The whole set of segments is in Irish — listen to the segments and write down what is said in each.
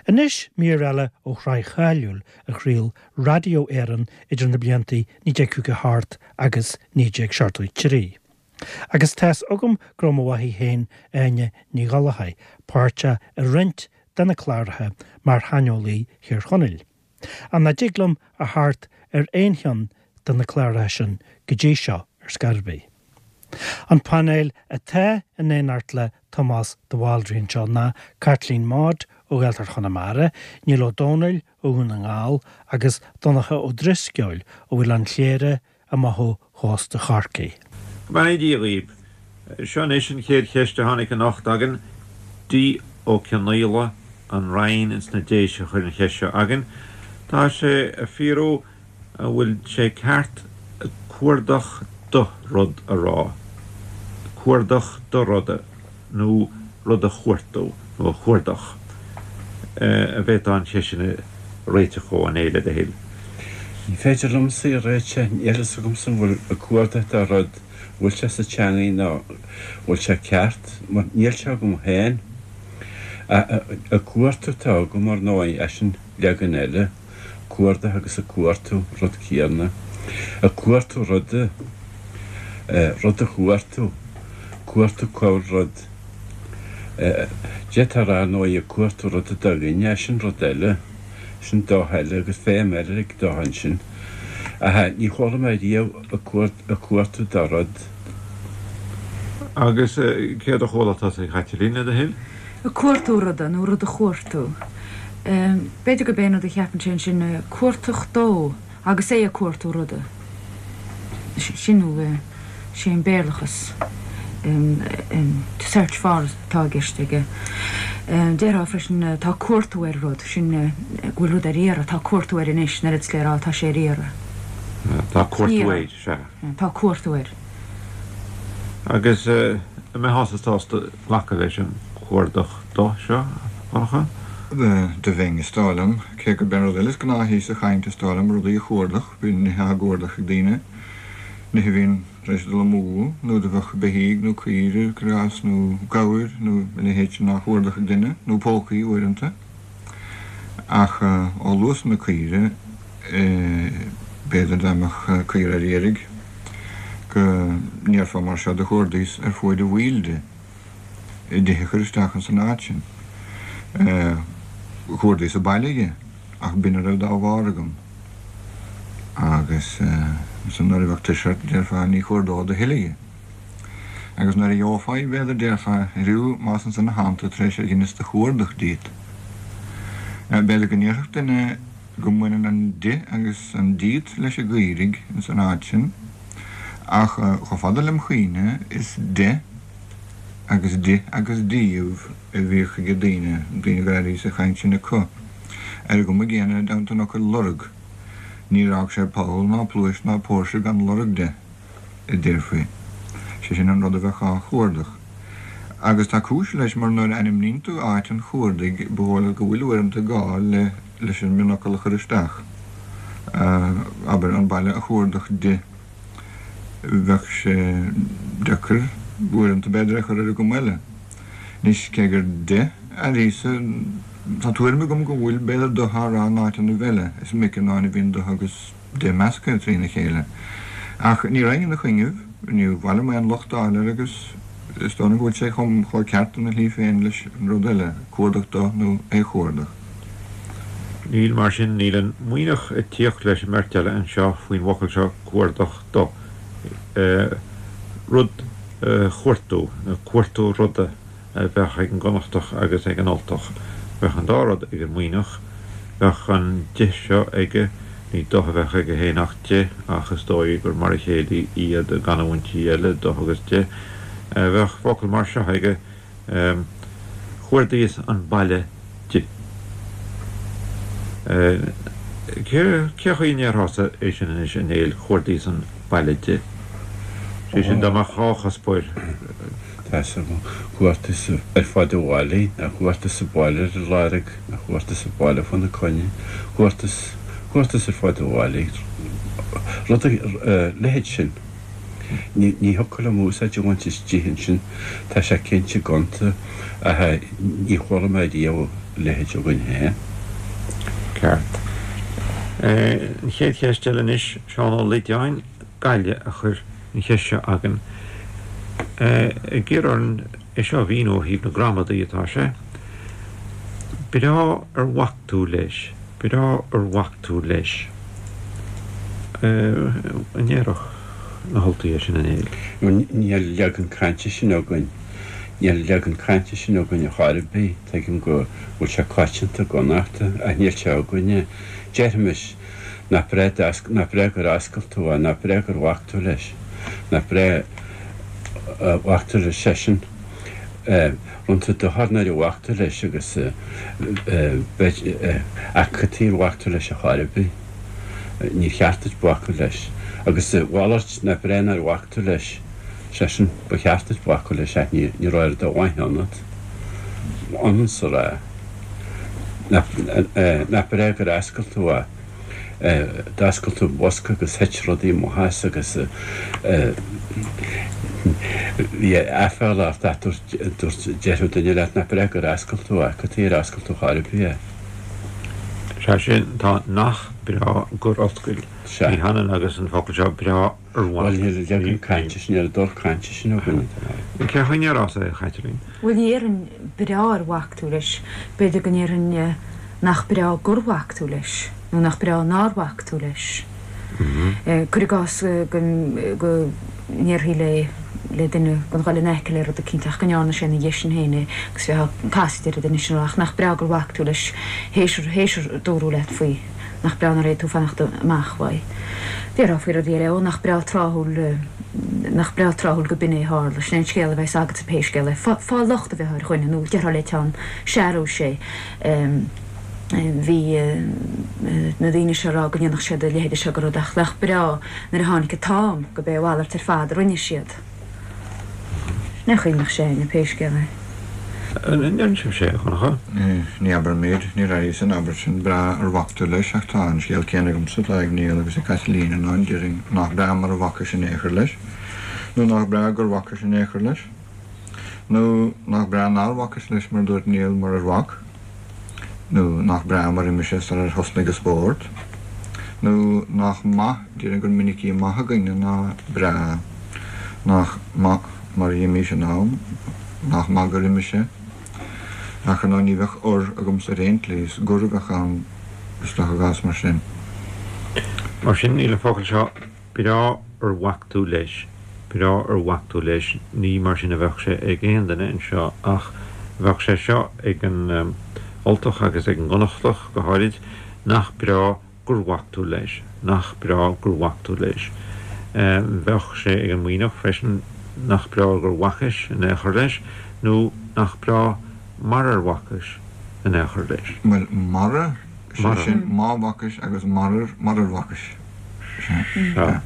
Anois mír eile ó shraith cháiliúil a chraol Radio Éireann idir na blianta 1958 agus 1973. Agus tá's agam go raibh mo mháthair féin, Áine Ní Ghallchóir, páirteach i roinnt de na cláracha mar shaineolaí Thír Chonaill. Ach nach dtig liom a theacht ar aon cheann de na cláracha sin go dtí seo ar scor ar bith. An painéal atá in éineacht le Tomás de Bhaldraithe anseo ná Caitlín Maude ó Ghaeltacht Chonamara, Niall Ó Dónaill ó Dhún na nGall agus Donncha Ó Drisceoil ó Oileán Chléire amach ó chósta Chorcaí. Go mbeannaí Dia dhaoib. Seo anois an chéad cheist a tháinig anocht againn. D. Ó Cionnaola, An Rinn ins na Déise a chuir an cheist seo againn. Tá sé ag fiafraí an bhfuil sé ceart cuardach do rud a rá, cuardach do ruda nó rud a chuartú nó a chuardach. An bhféadfá an cheist sin a réiteach dhó, a Néill, le do thoil? Ní féidir liomsa í a réiteach, níl fhios agamsa an bhfuil ag cuardach do rud, an bhfuil sé sa teangaidh nó an bhfuil sé ceart, mar níl sé agam féin. Ag cuartú atá agam, ar ndóigh, eisean leagan eile, cuardach agus ag cuartú, rud céanna. Ag cuartú ruda, rud a chuartú, cuartú cá bhfuil rud. D'fhéadfá a rá, ar ndóigh, ag cuartú ruda do dhuine, sin rud eile, sin do eile agus feidhm eile ag do ansin. Ach ní chuala mé riamh ag cuartú do rud. Agus céard a chuala tusa, a Chaitlín, le do thoil? Ag cuartú ruda, nó rud a chuartú. B'fhéidir gurb é an rud a cheapann sé ansin, cuartach dó, agus é ag cuartú ruda. Sin nó sé an Béarlachas to search for atá i gceist aige. Déarfá freisin tá cuartú ar rud, sin go bhfuil rud ar iarraidh, tá cuartú air anois, an oiread is le rá tá sé ar iarraidh. Tá cuartú air, sea. Tá cuartú air. Agus an mbeifeása sásta glacadh leis an cuardach do seo, a Dhonncha? Do bheinn, is dóigh liom. Cé gurb é an rud eile is gnáthaí sa chaint, is dóigh liom, rudaí a chuardach, bíonn nithe á gcuardach ag daoine, nithe a bhíonn tar éis dul amú, nó do bheadh beithígh nó caoire, cuir i gcás, nó gabhair nó a leithéid sin á chuardach ag duine, nó pócaí uaireanta. Ach ó luas na caoire, b'fhéidir dá mbeadh caora ar iarraidh go ndéarfá mar seo do chuardaíos ar fuaid a bhaill di. di a chur isteach ins an áit sin. Chuardaíos an baile dhi, ach b'in a raibh dá bharr agam. Agus ansan nuair a bheadh tuirse ort, déarfá, ní chuardód a thuilleadh dhi. Agus nuair a gheofá í, b'fhéidir, déarfá, airiú, más ansan a thánn tú tar éis ar dheineas do chuardach díot. B'fhéidir go ndéarfadh duine go mbaineann an di agus an díot leis an gcaoirigh ins an áit sin, ach chomh fada lem chuimhne, is de agus di agus díobh a bhíodh ag daoine, daoine go raibh sa chaint sin acu. Ar an gcuma gcéanna i dteannta an fhocail lorg, níor fhág sé poll ná pluais ná póirse gan lorg de, a déarfaí. Sé sin an rud a bheadh á chuardach. Agus tá cúis leis mar nuair a ainmníonn tú áit an chuardaigh ba dhóigh leat go bhfuil uaireanta gá le leis an mionfhocal a chur isteach. Abair, an baile a chuardach di. Bheadh sé deacair uaireanta b'fhéidir é a chur ar an gcuma eile. Anois, cé gur de airíosa, tá tuairim agam go bhfuil b'fhéidir do á rá in áiteannaibh eile, is minic in áin a bhíonn do agus de measctha trína chéile. Ach ní raghainn ina choinnibh, níor mhaith liom aon locht a fháil air agus is dóigh liom go bhfuil sé chomh ceart ina shlí féin leis an rud eile, cuardach do nó é chuardach. Níl, mar sin, níl an Muimhneach ag tíocht leis an mbeirt eile anseo faoin bhfocal seo cuardach do, rud a chuartú, nó cuartú ruda a bheadh ag an gConnachtach agus ag an Ultach. Bheadh an dá rud ag an Muimhneach. Bheadh an di seo aige, ní do a bheadh aige féin ach de, ach is dóigh gur mar a chéile iad i gcanúintí eile, do agus de. Bheadh focal mar seo aige. Chuardaíos an baile di. Cé chaoi a ndéarfása é sin anois, a Néill, chuardaíos an baile di? Sé sin, dá mbeadh dhá chuspóir. Tá 'fhios agam. Chuardaíos ar fud an bhaile, nó chuardaíos an baile ar a lorg, nó chuardaíos an baile fána coinne. Chuardaíos, chuardaíos ar fud an bhaile. Rud a leithéid sin. Ní thiocfadh liom úsáid a bhaint as di ansin, tá sé cinnte gonta, ach ní chuala mé riamh. leithéid againn féin. Ceart. An chéad cheist eile anois, Seán Ó Loideáin, Gaillimh, a chuir an cheist seo againn. Ag iarraidh orainn é seo a mhíniú ó thaobh na gramadaí atá sé. Breá ar bhac tú leis, breá ar bhac tú leis. An ndéarfadh na hUltaigh é sin, a Néill? Níl leagan cainte sin againn. Níl leagan cainte sin againn ar chor ar bith. Tuigim go bhfuil sé coitianta i gConnachta, ach níl sé againne. Déarfaimis, nach breá nach breá gur oscail tú é, nach breá gur bhac tú leis, nach breá a bhac tú leis seisean. Rinne tú dochar nuair a bhac tú leis agus b'fhéidir, ach cad chuige ar bhac tú leis ar chor ar bith? Níor cheart duit bacadh leis. Agus a mhalairt, nach breá nár bhac tú leis? Seisean, Ba cheart duit bacadh leis ach ní raibh oiread de mhaith ionat. Ionann 's a rá. Nach breá gur oscail tú é. D'oscail tú an bosca agus thit rudaí amach as agus bhí aiféala ort ach dúirt, dúirt, déarfadh duine leat nach breá gur oscail tú é. Cad chuige ar oscail tú chor ar bith é? Sea sin, tá nach breá gur oscail. Sea. Ní hionann agus an focal seo breá ar bhac. Bhuel, níl an leagan cainte sin, níl an dul cainte sin againn. Cén chaoi a ndéarfása é, a Chaitlín? Bhuel, ní dhéarfainn breá ar bhac tú leis. B'fhéidir go ndéarfainn nach breá gur bhac tú leis, nó nach breá nár bhac tú leis. Cuir i gcás go ndéarfaí le le duine gan dhul in aice le rud eicínt ach go ndearna sé ina dhiaidh sin féin é agus bheifeá casaoid ar an duine sin a rá ach nach breá gur bhac tú leis théis théis ar dúradh leat faoi. Nach breá nár fhéad tú fanacht amach uaidh. Déarfá faoi rudaí eile, ó nach breá tráthúil, nach breá tráthúil go b'in é a tharla, sin é an scéal a bheas agatsa pé scéal é. Fáil locht a bheith ar dhuine, nó déarfá le teann searúis é. Bhí na daoine seo ag rá go ndéanfadh siad a leithéide seo de rud ach nach breá nuair a tháinig an t-am go b'é a mhalairt ar fad a rinne siad. Sin é an chaoi a mbeadh sé againne, pé scéal é. An ndeireann sibhse é, a Dhonncha? Ní abraimid, níor airíos an abairt sin, breá ar bhac tú leis, ach tá an scéal céanna agamsa atá ag Niall agus ag Caitlín, ná déarfainn nach breá mar a bhacais in aon chor leis, nó nach breá gur bhacais in aon chor leis, nó nach breá nár bhacais leis mar a dúirt Niall murar bhac, nó nach breá mar imigh sé sarar thosnaigh an spórt, nó nach maith, déarfainn gur minicí maith againne ná breá, nach maith mar dh'imís in am, nach maith gur imigh sé, ach ar ndóigh ní bheadh ur agamsa ar aon tslí, is gur a bheadh ann is dócha i gcás mar sin. Mar sin, níl an focal seo Breá ar bhac tú leis, breá ar bhac tú leis, ní mar sin a bheadh sé ag aon duine anseo, ach bheadh sé seo ag an Ultach agus ag an gConnachtach go háirid, nach breá gur bhac tú leis, nach breá gur bhac tú leis. Bheadh sé ag an Muimhneach freisin, nach breá gur bhacais in aon chor leis, nó nach breá mar ar bhacais in aon chor leis. Bhuel, mara, sé sin, má bhacais agus marar, marar bhacais. Sea.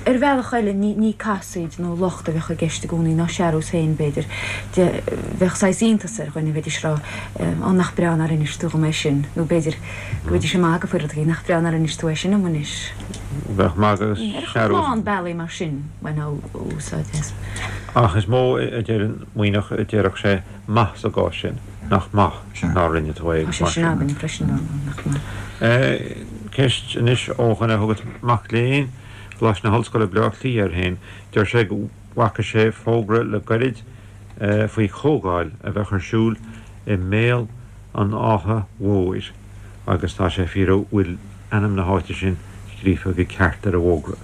Ar bhealach eile, ní casaoid nó locht a bheadh i gceist i gcónaí, ná searús féin, b'fhéidir. Bheadh saghas iontas ar dhuine, bheidís ag rá, Ó, nach breá nár inis tú dhom é sin, nó b'fhéidir go mbeidís ag magadh faoi rud éigin, Nach breá nár inis tú é sin dom anois. Bheadh magadh agus searús. Ar lán bealaí mar sin, bhainfeá úsáid as. Ach is mó a deir an Muimhneach a déarfadh sé maith sa gcás sin, nach maith. nár rinne tú é Tá sé mar sin sin. againn freisin, nach maith. Ceist anois ó dhuine a thugas mac léinn Choláiste na hOllscoile Baile Átha Cliath air féin. Deir sé go bhfaca sé fógra le gairid faoi chomhdháil a bheadh ar siúl i mBéal an Átha Mhóir agus tá sé ag fiafraí an bhfuil ainm na háite sin scríofa go ceart ar an bhfógra.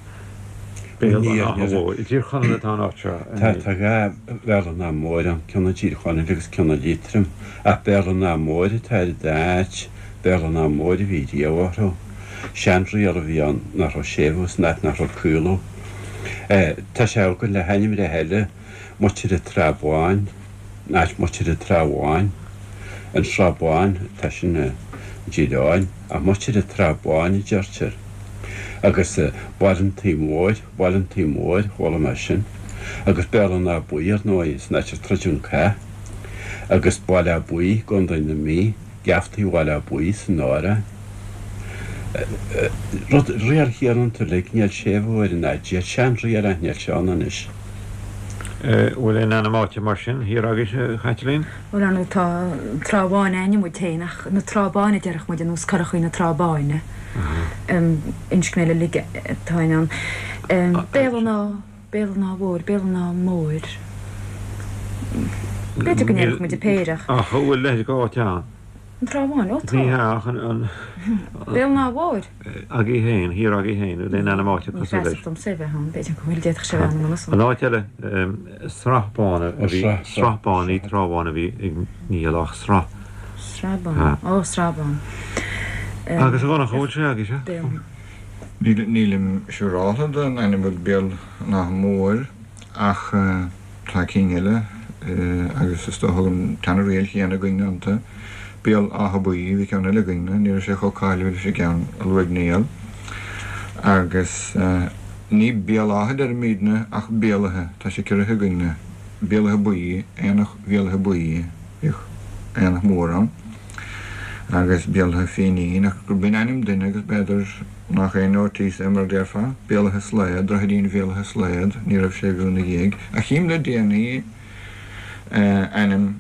Béal an Átha Mhóir. I dTír Chonaill atá an áit seo. Tá, tá 2 Bhéal an Átha Móir ann, ceann i dTír Chonaill agus ceann i Liatroim. Ach Béal an Átha Móir atá ar an dá áit, Béal an Átha Móir a bhí riamh orthu. Seanriail a bhí ann nach raibh séimhiú san áit nach raibh caolú. Tá sé againn le hainmneacha eile, Muitir an Trá Bháin, an áit Muitir an Trá Bháin, an Srath Bán, tá sin i dTír Eoghain, ach Muitir an Trá Báin a deirtear. Agus Baile an Tí Mhóir, Baile an Tí Mhóir, chuala mé sin. Agus Béal an Átha Buí, ar ndóigh, san áit ar troideadh an cath. Agus Baile Átha Buí, i gContae na Mí, Geaftaí Bhaile Átha Buí san áireamh. Rud, riail chéanna iontu uilig, níl séimhiú ar an áit, seanriail ach níl sé ann anois. Bhfuil aon ainm áite mar sin thiar agaibhse, a Chaitlín? Bhuel, ar ndóigh, tá an Trá Bháin a'inne muid féin, ach na Trá Báine a déarfadh muid, ar nós Curachaí na Trá Báine. Inscne eile uilig atá in ann. Béal an Átha, Béal an Átha Mhóir, Béal an Átha Móir. B'fhéidir go ndéarfadh muid an péire ach. Ach an bhfuil a leithéid d'áit ann? An Trá Bháin? Ó tá. Ní hea, ach an. Béal an Átha Mhóir? Agaibh féin, thiar agaibh féin, an bhfuil aon ainm áite cosúil leis? Ní feasach domsa é bheith ann, b'fhéidir go bhfuil, d'fhéadfadh sé a bheith ann i ngan fhios. An áit eile, Srath Bán a bhí, Srath Bán, ní Trá Bháin a bhí ag Niall ach Srath. Srath Bán, ó Srath Bán. Agus a Dhonncha, an bhfuil sé agaibhse? Nílim siúráltha den ainm Béal an Átha Móir ach. Tá cinn eile agus is dócha an tseana-riail chéanna againn iontu. Béal Átha Buí, bhí ceann eile againn, ní raibh sé chomh cáiliúil leis an gceann a luaigh Niall. Agus ní Béal Átha a deirimídne ach Béal Átha, tá sé ciorraithe againn-ne. Béal Átha Buí, Aonach Bhéal Átha Buí, bhíodh aonach mór ann. Agus Béal Átha Fínín, ach gur b'in ainm duine agus b'fhéidir Nach é notice é mar a déarfá? Béal Átha Slaod, Droichidín Bhéal Átha Slaod, ní raibh séimhiú ina dhiaidh. Ach chím le déanaí ainm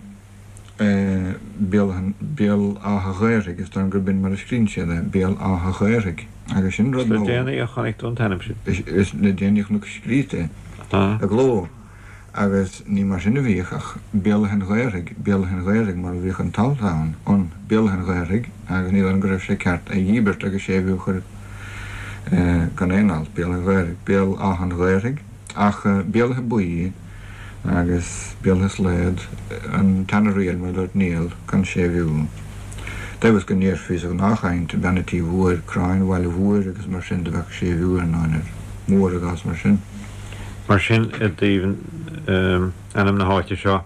Béal Béal Átha Ghaorthaidh, is dóigh liom gurb in mar a scríonn siad é, Béal Átha Ghaorthaidh. Agus sin rud Is le déanaí a chonaic tú an t-ainm sin? Is le déanaí a chonac scríte é i gcló. Agus ní mar sin a bhíodh ach Béal Átha an Ghaorthaidh, Béal Átha an Ghaorthaidh mar a bhíodh an t-alt ann, an, Béal Átha an Ghaorthaidh, agus ní dóigh liom go raibh sé ceart é dhíbirt agus séimhiú a chur gan aon alt, Béal Átha Ghaorthaidh, Béal Átha an Ghaorthaidh, ach Béal Átha Buí agus Béal Átha Slaod, an tseana-riail mar a dúirt Niall, gan séimhiú. Deimhin go ndéarfaí sa ghnáthchaint, Bean an Tí Mhóir, Cráin Bhaile Mhóir agus mar sin de bheadh séimhiú ar ndóin ar mór i gcás mar sin. Mar sin, i dtaobh ainm na háite seo,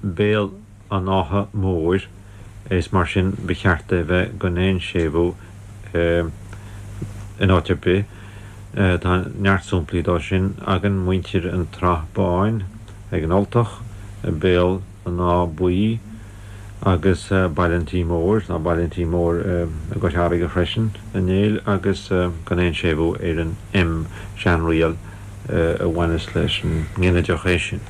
Béal an Átha Móir, is mar sin ba cheart é bheith gan aon séimhiú in áit ar bith. Tá neart samplaí dó sin againn, muintir an tSraith Báin ag an Ultach, Béal an Átha Buí agus Baile an Tí Mhóir, tá Baile an Tí Mhóir i gCois Fharraige freisin, a Néill, agus gan aon séimhiú ar an M, seanriail a bhaineas leis an nginideach é sin.